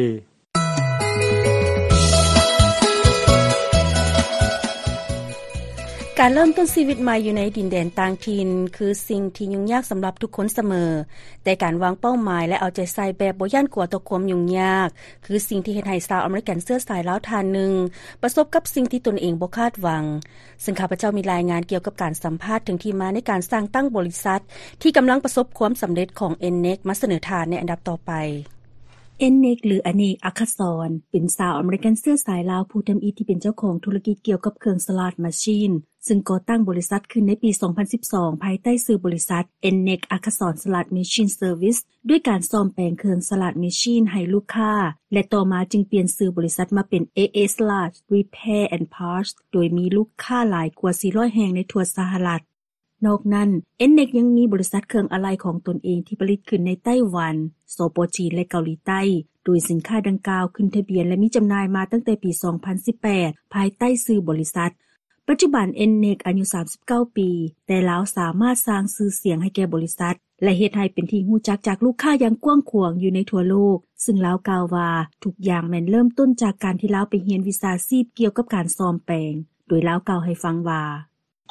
ການເລີ່ມຕົ້ນຊີວິດໃໝ່ຢູ່ໃນດິນແດນຕ່າງຖິ່ນ ຄືສິ່ງທີ່ຫຍຸ້ງຍາກສຳລັບທຸກຄົນສະເໝີ, ແຕ່ການວາງເປົ້າໝາຍ ແລະ ເອົາໃຈໃສ່ແບບບໍ່ຢ້ານກົວຕໍ່ຄວາມຫຍຸ້ງຍາກ ຄືສິ່ງທີ່ເຮັດໃຫ້ຊາວອາເມລິກັນເຊື້ອສາຍລາວທ່ານໜຶ່ງ ປະສົບກັບສິ່ງທີ່ຕົນເອງບໍ່ຄາດຫວັງ. ເຊິ່ງຂ້າພະເຈົ້າມີລາຍງານກ່ຽວກັບການສຳພາດເຖິງທີ່ມາໃນການສ້າງຕັ້ງບໍລິສັດ ທີ່ກຳລັງປະສົບຄວາມສຳເລັດຂອງ ເອັນເນັກ ມາສະເໜີທ່ານໃນອັນດັບຕໍ່ໄປ. ເອັນເນັກ ຫຼື ອະເນກ ອັກຄະສອນ ເປັນຊາວອາເມລິກັນເຊື້ອສາຍລາວຜູ້ທຳອິດທີ່ເປັນເຈົ້າຂອງທຸລະກິດກ່ຽວກັບເຄື່ອງສະຫຼາດມາຊີນ ເຊິ່ງກໍ່ຕັ້ງບໍລິສັດຂຶ້ນໃນປີສອງພັນສິບສອງ ພາຍໃຕ້ຊື່ບໍລິສັດ ເອັນເນັກ ອັກຄະສອນ ສະຫຼາດມາຊີນ ເຊີວິສ ດ້ວຍການສ້ອມແປງເຄື່ອງສະຫຼາດມາຊີນໃຫ້ລູກຄ້າ ແລະ ຕໍ່ມາຈຶ່ງປ່ຽນຊື່ບໍລິສັດມາເປັນ ເອເອ ສະຫຼາດ ຣີແພ ແອນ ພາດ ໂດຍມີລູກຄ້າຫຼາຍກວ່າສີ່ຮ້ອຍແຫ່ງໃນທົ່ວສະຫະລັດ. ນອກນັ້ນ ເອັນເນັກ ຍັງມີບໍລິສັດເຄື່ອງອາໄຫຼ່ຂອງຕົນເອງທີ່ຜະລິດຂຶ້ນໃນໄຕ້ຫວັນ, ສປ ຈີນ ແລະ ເກົາຫຼີໃຕ້, ໂດຍສິນຄ້າດັ່ງກ່າວຂຶ້ນທະບຽນ ແລະ ມີຈຳໜ່າຍມາຕັ້ງແຕ່ປີສອງພັນສິບແປດ ພາຍໃຕ້ຊື່ບໍລິສັດ. ປັດຈຸບັນ ເອັນເນັກ ອາຍຸສາມສິບເກົ້າປີ, ແຕ່ລາວສາມາດສ້າງຊື່ສຽງໃຫ້ແກ່ບໍລິສັດ ແລະ ເຮັດໃຫ້ເປັນທີ່ຮູ້ຈັກຈາກລູກຄ້າຢ່າງກວ້າງຂວາງຢູ່ໃນທົ່ວໂລກ, ເຊິ່ງລາວກ່າວວ່າ ທຸກຢ່າງແມ່ນເລີ່ມຕົ້ນຈາກການທີ່ລາວໄປຮຽນວິຊາຊີບກ່ຽວກັບການສ້ອມແປງ, ໂດຍລາວກ່າວໃຫ້ຟັງວ່າ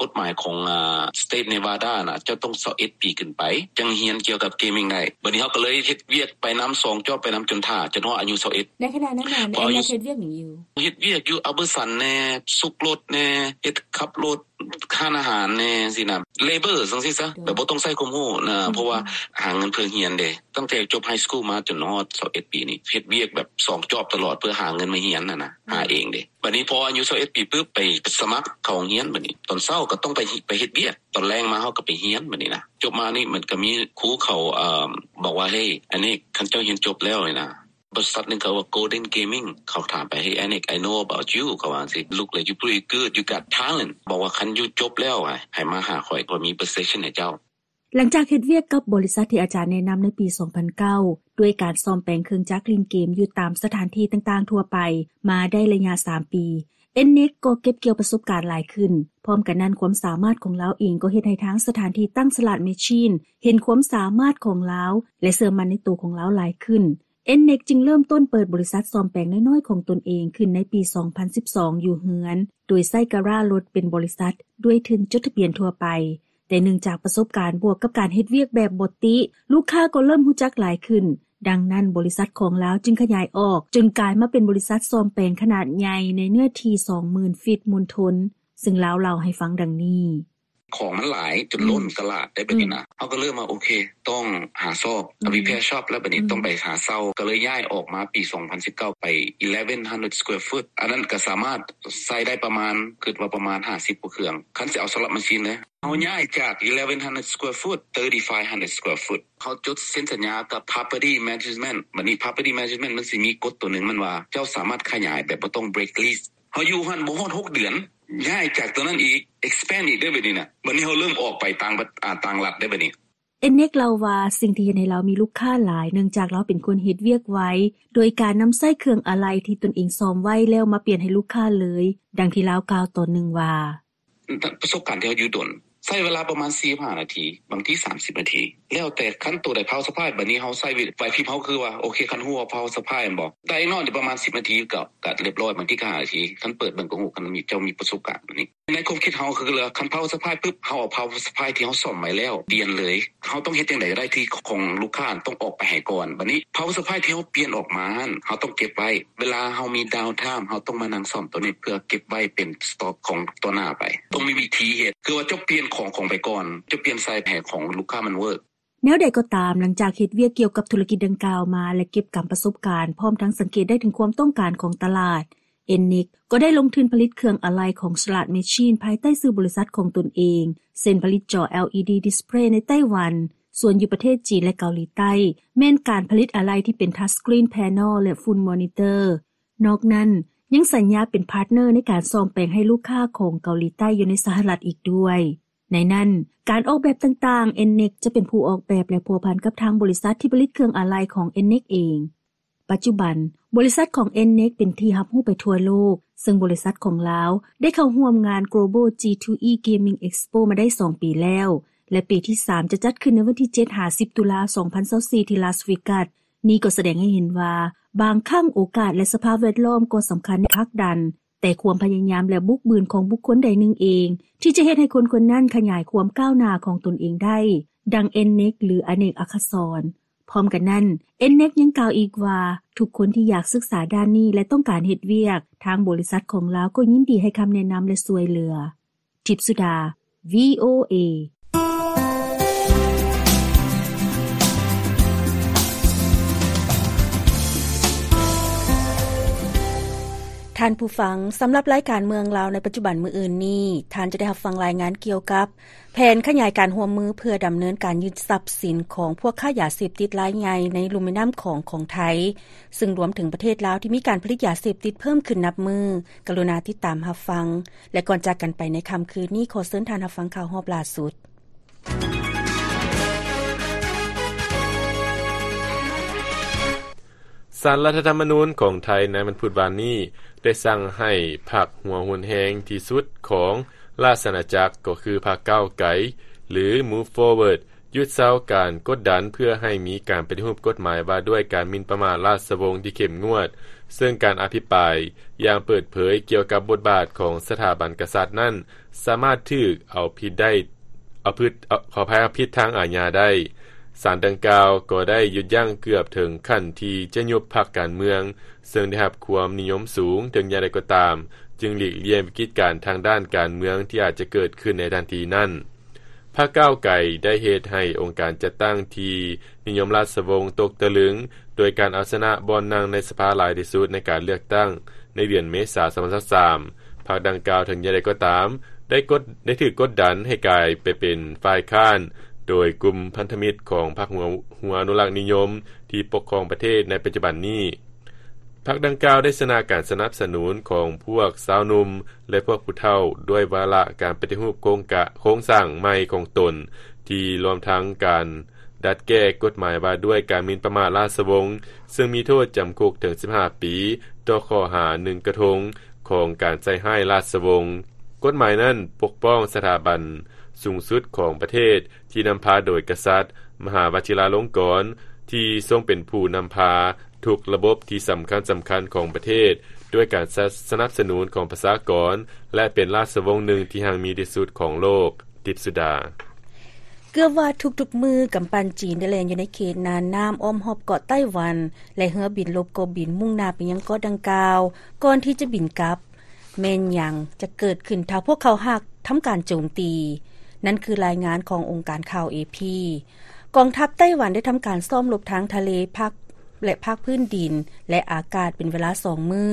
ກົດໝາຍຂອງ ອາ ສະເຕດເນວາດານະ ເຈົ້າຕ້ອງຊາວເອັດປີຂຶ້ນໄປ ຈັ່ງຮຽນກ່ຽວກັບເກມມິງໄດ້. ບັດນີ້ເຮົາກໍເລີຍເຮັດວຽກໄປນຳ ສອງຈອບໄປນຳ ຈົນຖ້າ ຈົນຮອດອາຍຸຊາວເອັດ. ໃນຂະນະນັ້ນນະ ເອັນເນັກເຮັດວຽກຫຍັງຢູ່? ເຮັດວຽກຢູ່ ອາເບີສັນແນ່, ສຸກລົດແນ່, ເຮັດຂັບລົດ, ຮ້ານອາຫານແນ່ຊີ້ນະ, ເລເບີຈັ່ງຊີ້ຊະ, ແບບບໍ່ຕ້ອງໃຊ້ຄວາມຮູ້ນະ, ເພາະວ່າຫາເງິນເພື່ອຮຽນເດ້. ຕັ້ງແຕ່ຈົບໄຮສະກູລມາຈົນຮອດຊາວເອັດປີນີ້ ເຮັດວຽກແບບສອງຈອບຕະຫຼອດ ເພື່ອຫາເງິນມາຮຽນຫັ້ນນະ, ຫາເອງເດ້. ບັດນີ້ພໍອາຍຸຊາວເອັດປີປຶບ ໄປສະໝັກເຂົ້າໂຮງຮຽນ, ບັດນີ້ຕອນເຊົ້າກໍຕ້ອງໄປ ໄປເຮັດວຽກ, ຕອນແລງມາເຮົາກໍໄປຮຽນ. ບັດນີ້ນະ ຈົບມານີ້ມັນກໍມີຄູເຂົາ ເອີ ບອກວ່າ ເຮີ້ຍ ອັນນີ້ ຄັນເຈົ້າຮຽນຈົບແລ້ວນີ້ນະ, ບໍລິສັດໜຶ່ງເຂົາວ່າ Golden Gaming ເຂົາຖາມໄປ Hey Anik, I know about you ເຂົາວ່າຈັ່ງຊີ້, Look like you pretty good, you got talent. ບອກວ່າ ຄັນຢູ່ຈົບແລ້ວ ໃຫ້ມາຫາຂ້ອຍ, ຂ້ອຍມີ position ໃຫ້ເຈົ້າ. ຫຼັງຈາກເຮັດວຽກກັບບໍລິສັດທີ່ອາຈານແນະນຳໃນປີສອງພັນເກົ້າ ດ້ວຍການສ້ອມແປງເຄື່ອງຈັກຫຼິ້ນເກມຢູ່ຕາມສະຖານທີ່ຕ່າງໆທົ່ວໄປມາໄດ້ໄລຍະສາມປີ, ເອັນເນັກກໍເກັບກ່ຽວປະສົບການຫຼາຍຂຶ້ນ. ພ້ອມກັນນັ້ນ, ຄວາມສາມາດຂອງລາວເອງກໍເຮັດໃຫ້ທາງສະຖານທີ່ຕັ້ງສະຫຼາດແມຊີນເຫັນຄວາມສາມາດຂອງລາວ ແລະ ເຊື່ອໝັ້ນໃນໂຕຂອງລາວຫຼາຍຂຶ້ນ. ເອັນເນັກຈຶ່ງເລີ່ມຕົ້ນເປີດບໍລິສັດສ້ອມແປງນ້ອຍໆຂອງຕົນເອງຂຶ້ນໃນປີສອງພັນສິບສອງ ຢູ່ເຮືອນ, ໂດຍໃຊ້ກາຣາດລົດເປັນບໍລິສັດ ດ້ວຍທຶນຈົດທະບຽນທົ່ວໄປ. ແຕ່ເນື່ອງຈາກປະສົບການບວກກັບການເຮັດວຽກແບບບໍ່ຕິ, ລູກຄ້າກໍເລີ່ມຮູ້ຈັກຫຼາຍຂຶ້ນ. ດັ່ງນັ້ນ, ບໍລິສັດຂອງລາວຈຶ່ງຂະຫຍາຍອອກ ຈົນກາຍມາເປັນບໍລິສັດສ້ອມແປງຂະໜາດໃຫຍ່ໃນເນື້ອທີ່ສອງໝື່ນຟີດມົນທົນ, ເຊິ່ງລາວເລົ່າໃຫ້ຟັງດັ່ງນີ້. ຂອງມັນຫຼາຍຈົນລົ້ນຕະຫຼາດໄດ້ ແບບນີ້ນະ. ເຮົາກໍເລີ່ມວ່າ ໂອເຄ ຕ້ອງຫາຊອບ repair shop ແລ້ວ ແບບນີ້ຕ້ອງໄປຫາເຊົ່າ. ກໍເລີຍຍ້າຍອອກມາປີສອງພັນສິບເກົ້າ ໄປ eleven hundred square foot. ອັນນັ້ນກໍສາມາດໃຊ້ໄດ້ປະມານ ຄິດວ່າປະມານຫ້າສິບກວ່າເຄື່ອງ. ຄັນຊິເອົາສະລັບມາຊີນເດ້ ເຮົາຍ້າຍຈາກ eleven hundred square foot thirty-five hundred square foot. ເຮົາຈົດເຊັນສັນຍາກັບ property management. ບັດນີ້ property management ມັນຊິມີກົດຕົວໜຶ່ງ ມັນວ່າເຈົ້າສາມາດຂະຫຍາຍແບບບໍ່ຕ້ອງ break lease. ເຮົາຢູ່ຫັ້ນບໍ່ຮອດຫົກເດືອນ ຍ້າຍຈາກຕົວນັ້ນອີກ expand ອີກເດ້ ບັດນີ້ນະ. ບັດນີ້ເຮົາເລີ່ມອອກໄປຕ່າງ ອາ ຕ່າງລັດເດ້ ບັດນີ້. ເອັນເນັກເລົ່າວ່າ ສິ່ງທີ່ເຮັດໃຫ້ລາວມີລູກຄ້າຫຼາຍ ເນື່ອງຈາກລາວເປັນຄົນເຮັດວຽກໄວ ໂດຍການນຳໃຊ້ເຄື່ອງອາໄຫຼ່ທີ່ຕົນເອງສ້ອມໄວ້ແລ້ວມາປ່ຽນໃຫ້ລູກຄ້າເລີຍ. ດັ່ງທີ່ລາວກ່າວຕອນໜຶ່ງວ່າ ປະສົບການທີ່ເຮົາຢູ່ດົນ ໃຊ້ເວລາປະມານສີ່ສິບຫ້ານາທີ ບາງທີສາມສິບນາທີ ແລ້ວແຕ່ຄັນໂຕໃດ power supply. ບັດນີ້ເຮົາໃຊ້ໄຫວພິບເຮົາ ຄືວ່າ ໂອເຄ ຄັນຮູ້ວ່າ power supply ແມ່ນບໍ່ ໄດ້ນອນຢູ່ປະມານສິບນາທີ ກໍ ກໍລຽບຮ້ອຍ. ບາງທີກໍຫ້ານາທີ ຄັນເປີດເບິ່ງກໍຮູ້ ຄັນມີ ເຈົ້າມີປະສົບການ. ບັດນີ້ໃນຄວາມຄິດເຮົາ ຄືວ່າຄັນ power supply ປຶບ ເຮົາເອົາ power supply ທີ່ເຮົາສ້ອມໄວ້ແລ້ວປ່ຽນເລີຍ. ເຮົາຕ້ອງເຮັດຈັ່ງໃດກໍໄດ້ທີ່ຂອງລູກຄ້າຕ້ອງອອກໄປໃຫ້ກ່ອນ. ບັດນີ້ power supply ທີ່ເຮົາປ່ຽນອອກມາຫັ້ນ ເຮົາຕ້ອງເກັບໄວ້. ເວລາເຮົາມີ downtime ເຮົາຕ້ອງມານັ່ງສ້ອມໂຕນີ້ ເພື່ອເກັບໄວ້ເປັນ stock ຂອງຕໍ່ໜ້າໄປ. ຕ້ອງມີວິທີເຮັດ ຄືວ່າເຈົ້າປ່ຽນຂອງ ຂອງໄປກ່ອນ ເຈົ້າປ່ຽນໃສ່ແຜຂອງລູກຄ້າມັນ work. ແນວໃດກໍຕາມ, ຫຼັງຈາກເຮັດວຽກກ່ຽວກັບທຸລະກິດດັ່ງກ່າວມາ ແລະ ເກັບກຳປະສົບການ ພ້ອມທັງສັງເກດໄດ້ເຖິງຄວາມຕ້ອງການຂອງຕະຫຼາດ, ເອັນເນັກ ກໍໄດ້ລົງທຶນຜະລິດເຄື່ອງອາໄຫຼ່ຂອງ Slot Machine ພາຍໃຕ້ຊື່ບໍລິສັດຂອງຕົນເອງ, ເຊັ່ນ ຜະລິດຈໍ ແອລອີດີ display ໃນໄຕ້ຫວັນ, ສ່ວນຢູ່ປະເທດຈີນ ແລະ ເກົາຫຼີໃຕ້ ແມ່ນການຜະລິດອາໄຫຼ່ທີ່ເປັນ touch screen panel ແລະ full monitor. ນອກນັ້ນ ຍັງສັນຍາເປັນ partner ໃນການສ້ອມແປງໃຫ້ລູກຄ້າຂອງເກົາຫຼີໃຕ້ຢູ່ໃນສະຫະລັດອີກດ້ວຍ. ໃນນັ້ນ, ການອອກແບບຕ່າງໆ ເອັນເນັກ ຈະເປັນຜູ້ອອກແບບ ແລະ ພົວພັນກັບທາງບໍລິສັດທີ່ຜະລິດເຄື່ອງອາໄຫຼ່ຂອງ ເອັນເນັກ ເອງ. ປັດຈຸບັນ, ບໍລິສັດຂອງ ເອັນເນັກ ເປັນທີ່ຮັບຮູ້ໄປທົ່ວໂລກ, ເຊິ່ງບໍລິສັດຂອງລາວໄດ້ເຂົ້າຮ່ວມງານ Global ຈີ ທູ ອີ Gaming Expo ມາໄດ້ສອງປີແລ້ວ ແລະ ປີທີສາມ ຈະຈັດຂຶ້ນໃນວັນທີເຈັດ ຫາ ສິບ ຕຸລາ ສອງພັນຊາວສີ່ ທີ່ Las Vegas. ນີ້ກໍສະແດງໃຫ້ເຫັນວ່າ ບາງຄັ້ງໂອກາດ ແລະ ສະພາບແວດລ້ອມກໍສຳຄັນໃນການຜັກດັນ ແຕ່ຄວາມພະຍາຍາມ ແລະ ບຸກບືນຂອງບຸກຄົນໃດໜຶ່ງເອງ ທີ່ຈະເຮັດໃຫ້ຄົນຄົນນັ້ນຂະຫຍາຍຄວາມກ້າວໜ້າຂອງຕົນເອງໄດ້, ດັ່ງ ເອັນເນັກ ຫຼື ອະເນກອັກສອນ. ພ້ອມກັນນັ້ນ, ເອັນເນັກ ຍັງກ່າວອີກວ່າ ທຸກຄົນທີ່ຢາກສຶກສາດ້ານນີ້ ແລະ ຕ້ອງການເຮັດວຽກ, ທາງບໍລິສັດຂອງລາວກໍຍິນດີໃຫ້ຄຳແນະນຳ ແລະ ຊ່ວຍເຫຼືອ. ທິບສຸດາ ວີໂອເອ. ທ່ານຜູ້ຟັງ, ສຳລັບລາຍການເມືອງລາວໃນປັດຈຸບັນມື້ອື່ນນີ້, ທ່ານຈະໄດ້ຮັບຟັງລາຍງານກ່ຽວກັບ ແຜນຂະຫຍາຍການຮ່ວມມືເພື່ອດຳເນີນການຍຶດຊັບສິນຂອງພວກຄ້າຢາເສບຕິດລາຍໃຫຍ່ໃນລຸ່ມແມ່ນ້ຳຂອງຂອງໄທ, ຊຶ່ງລວມເຖິງປະເທດລາວທີ່ມີການຜະລິດຢາເສບຕິດເພີ່ມຂຶ້ນນັບມື້. ກະລຸນາຕິດຕາມຮັບຟັງ ແລະ ກ່ອນຈາກກັນໄປໃນຄ່ຳຄືນນີ້, ຂໍເຊີນທ່ານຮັບຟັງຂ່າວຮອບຫຼ້າສຸດ. ສານລັດຖະທຳມະນູນຂອງໄທໃນວັນພຸດວານນີ້ ໄດ້ສັ່ງໃຫ້ພັກຫົວຮຸນແຮງທີ່ສຸດຂອງລາຊະອານາຈັກ ກໍຄືພັກກ້າວໄກ ຫຼື Move Forward ຢຸດເຊົາການກົດດັນເພື່ອໃຫ້ມີການປະຕິຮູບກົດໝາຍວ່າດ້ວຍການໝິ່ນປະໝາດລາຊະວົງທີ່ເຂັ້ມງວດ, ເຊິ່ງການອະພິປາຍຢ່າງເປີດເຜີຍກ່ຽວກັບບົດບາດຂອງສະຖາບັນກະສັດນັ້ນ ສາມາດຖືກເອົາຜິດໄດ້ ເອົາຜິດ ເອົາ ຂໍອະໄພ ເອົາຜິດທາງອາຍາໄດ້. ສານດັ່ງກ່າວກໍໄດ້ຢຸດຢັ້ງເກືອບເຖິງຂັ້ນທີ່ຈະຍຸບພັກການເມືອງ, ເຊິ່ງໄດ້ຮັບຄວາມນິຍົມສູງ. ເຖິງຢ່າງໃດກໍຕາມ, ຈຶ່ງຫຼີກລ່ຽງວິກິດການທາງດ້ານການເມືອງທີ່ອາດຈະເກີດຂຶ້ນໃນທັນທີນັ້ນ. ພັກກ້າວໄກໄດ້ເຮັດໃຫ້ອົງການຈັດຕັ້ງທີ່ນິຍົມລາຊະວົງຕົກຕະລຶງ ໂດຍການເອົາຊະນະບ່ອນນັ່ງໃນສະພາຫຼາຍທີ່ສຸດໃນການເລືອກຕັ້ງໃນເດືອນເມສາ ສອງພັນຊາວສາມ. ພັກດັ່ງກ່າວ ເຖິງຢ່າງໃດກໍຕາມ ໄດ້ກົດ ໄດ້ຖືກກົດດັນໃຫ້ກາຍໄປເປັນຝ່າຍຄ້ານ ໂດຍກຸ່ມພັນທະມິດຂອງພັກຫົວ ຫົວອະນຸລັກນິຍົມທີ່ປົກຄອງປະເທດໃນປັດຈຸບັນນີ້. ພັກດັ່ງກ່າວໄດ້ຊະນະການສະໜັບສະໜູນຂອງພວກຊາວໜຸ່ມ ແລະ ພວກຜູ້ເຖົ້າ ດ້ວຍວາລະການປະຕິຮູບໂຄງກະ ໂຄງສ້າງໃໝ່ຂອງຕົນ ທີ່ລວມທັງການດັດແກ້ກົດໝາຍວ່າດ້ວຍການໝິ່ນປະໝາດລາຊະວົງ, ເຊິ່ງມີໂທດຈຳຄຸກເຖິງສິບຫ້າປີ ຕໍ່ຂໍ້ຫາໜຶ່ງກະທົງຂອງການໃສ່ຮ້າຍລາຊະວົງ. ກົດໝາຍນັ້ນປົກປ້ອງສະຖາບັນສູງສຸດຂອງປະເທດ ທີ່ນຳພາໂດຍກະສັດມະຫາວະຊິຣາລົງກອນ ທີ່ຊົງເປັນຜູ້ນຳພາ ທຸກລະບົບທີ່ສຳຄັນໆຂອງປະເທດ ດ້ວຍການສະ ສະໜັບສະໜູນຂອງປະຊາກອນ ແລະ ເປັນລາຊະວົງໜຶ່ງທີ່ຮັ່ງມີທີ່ສຸດຂອງໂລກ. ທິບສຸດາ. ເກືອບວ່າທຸກໆມື້ ກຳປັ່ນຈີນໄດ້ແລ່ນຢູ່ໃນເຂດນ່ານນ້ຳອ້ອມຮອບເກາະໄຕ້ຫວັນ ແລະ ເຮືອບິນລົບກໍບິນມຸ່ງໜ້າໄປຍັງເກາະດັ່ງກ່າວ ກ່ອນທີ່ຈະບິນກັບ. ແມ່ນຫຍັງຈະເກີດຂຶ້ນຖ້າພວກເຂົາຫາກທຳການໂຈມຕີ? ນັ້ນຄືລາຍງານຂອງອົງການຂ່າວ ເອ ພີ. ກອງທັບໄຕ້ຫວັນໄດ້ທຳການຊ້ອມລົບທາງທະເລ ພາກ ແລະ ພາກພື້ນດິນ ແລະ ອາກາດເປັນເວລາສອງມື້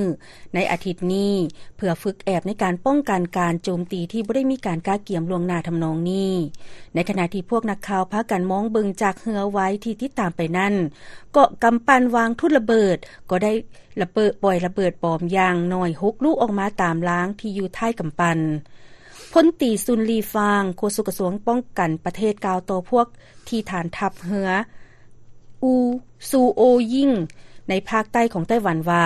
ໃນອາທິດນີ້ ເພື່ອຝຶກແອບໃນການປ້ອງກັນການໂຈມຕີທີ່ບໍ່ໄດ້ມີການກະກຽມລ່ວງໜ້າທຳນອງນີ້. ໃນຂະນະທີ່ພວກນັກຂ່າວພາກັນມອງເບິ່ງຈາກເຮືອໄວທີ່ຕິດຕາມໄປນັ້ນ, ເກາະກຳປັ່ນວາງທຸດລະເບີດກໍໄດ້ລະເບີດ ປ່ອຍລະເບີດບອມຢ່າງໜ້ອຍຫົກລູກອອກມາຕາມລາງທີ່ຢູ່ທ້າຍກຳປັ່ນ. ພົນຕີ ຊຸນ ລີຟາງ ໂຄສົກກະຊວງປ້ອງກັນປະເທດ ກ່າວຕໍ່ພວກທີ່ຖານທັບເຮືອ ອູ ຊູໂອຢິງ ໃນພາກໃຕ້ຂອງໄຕ້ຫວັນວ່າ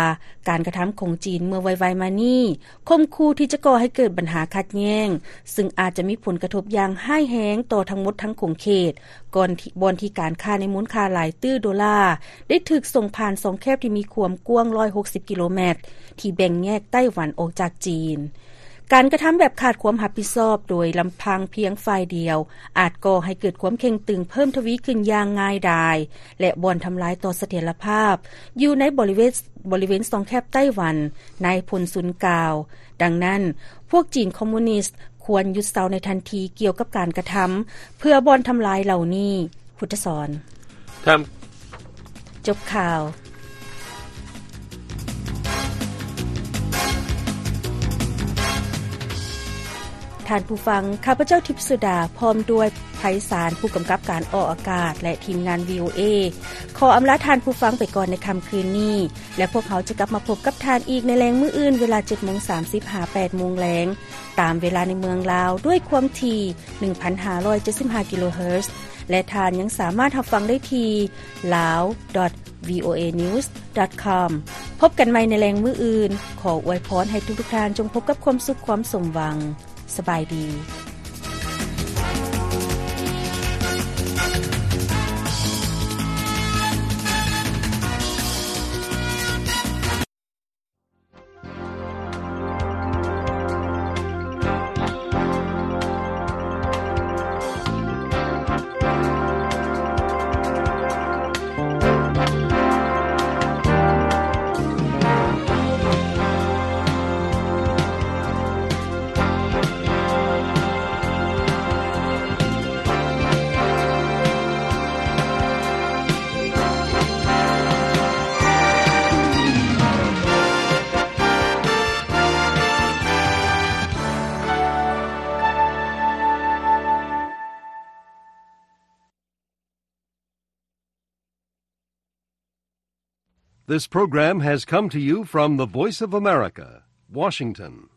ການກະທຳຂອງຈີນເມື່ອໄວໆມານີ້ ຂົ່ມຂູ່ທີ່ຈະກໍ່ໃຫ້ເກີດບັນຫາຂັດແຍ່ງ ຊຶ່ງອາດຈະມີຜົນກະທົບຢ່າງຮ້າຍແຮງຕໍ່ທັງໝົດທັງຂົງເຂດ ກ່ອນທີ່ ບ່ອນທີ່ການຄ້າໃນມູນຄ່າຫຼາຍຕື້ໂດລາ ໄດ້ຖືກສົ່ງຜ່ານຊ່ອງແຄບທີ່ມີຄວາມກວ້າງຮ້ອຍຫົກສິບກິໂລແມັດ ທີ່ແບ່ງແຍກໄຕ້ຫວັນອອກຈາກຈີນ. ການກະທຳແບບຂາດຄວາມຮັບຜິດຊອບໂດຍລຳພັງພຽງຝ່າຍດຽວ ອາດກໍ່ໃຫ້ເກີດຄວາມເຄັ່ງຕຶງເພີ່ມທະວີຂຶ້ນຢ່າງງ່າຍດາຍ ແລະ ບ່ອນທຳລາຍຕໍ່ສະຖຽນລະພາບຢູ່ໃນບໍລິເວນ ບໍລິເວນຊ່ອງແຄບໄຕ້ຫວັນ, ນາຍພົນຊຸນກ່າວ. ດັ່ງນັ້ນ, ພວກຈີນຄອມມູນິດຄວນຢຸດເຊົາໃນທັນທີກ່ຽວກັບການກະທຳເພື່ອບ່ອນທຳລາຍເຫຼົ່ານີ້. ພຸດທະສອນ ທ່ານ ຈົບຂ່າວ. ທ່ານຜູ້ຟັງ, ຂ້າພະເຈົ້າ ທິບສຸດາ ພ້ອມດ້ວຍ ໄພສານ ຜູ້ກຳກັບການອອກອາກາດ ແລະ ທີມງານ ວີໂອເອ ຂໍອຳລາທ່ານຜູ້ຟັງໄປກ່ອນໃນຄ່ຳຄືນນີ້ ແລະ ພວກເຮົາຈະກັບມາພົບກັບທ່ານອີກໃນແລງມື້ອື່ນ ເວລາເຈັດໂມງສາມສິບ ຫາ ແປດໂມງແລງ ຕາມເວລາໃນເມືອງລາວ ດ້ວຍຄວາມຖີ່ ໜຶ່ງພັນຫ້າຮ້ອຍເຈັດສິບຫ້າ ກິໂລເຮີດ ແລະ ທ່ານຍັງສາມາດຮັບຟັງໄດ້ທີ່ ລາວ ດອດ ວີໂອເອ ນິວສ໌ ດອດ ຄອມ. ພົບກັນໃໝ່ໃນແລງມື້ອື່ນ. ຂໍອວຍພອນໃຫ້ທຸກໆທ່ານຈົ່ງພົບກັບຄວາມສຸກຄວາມສົມຫວັງ. ສະບາຍດີ. This program has come to you from the Voice of America, Washington.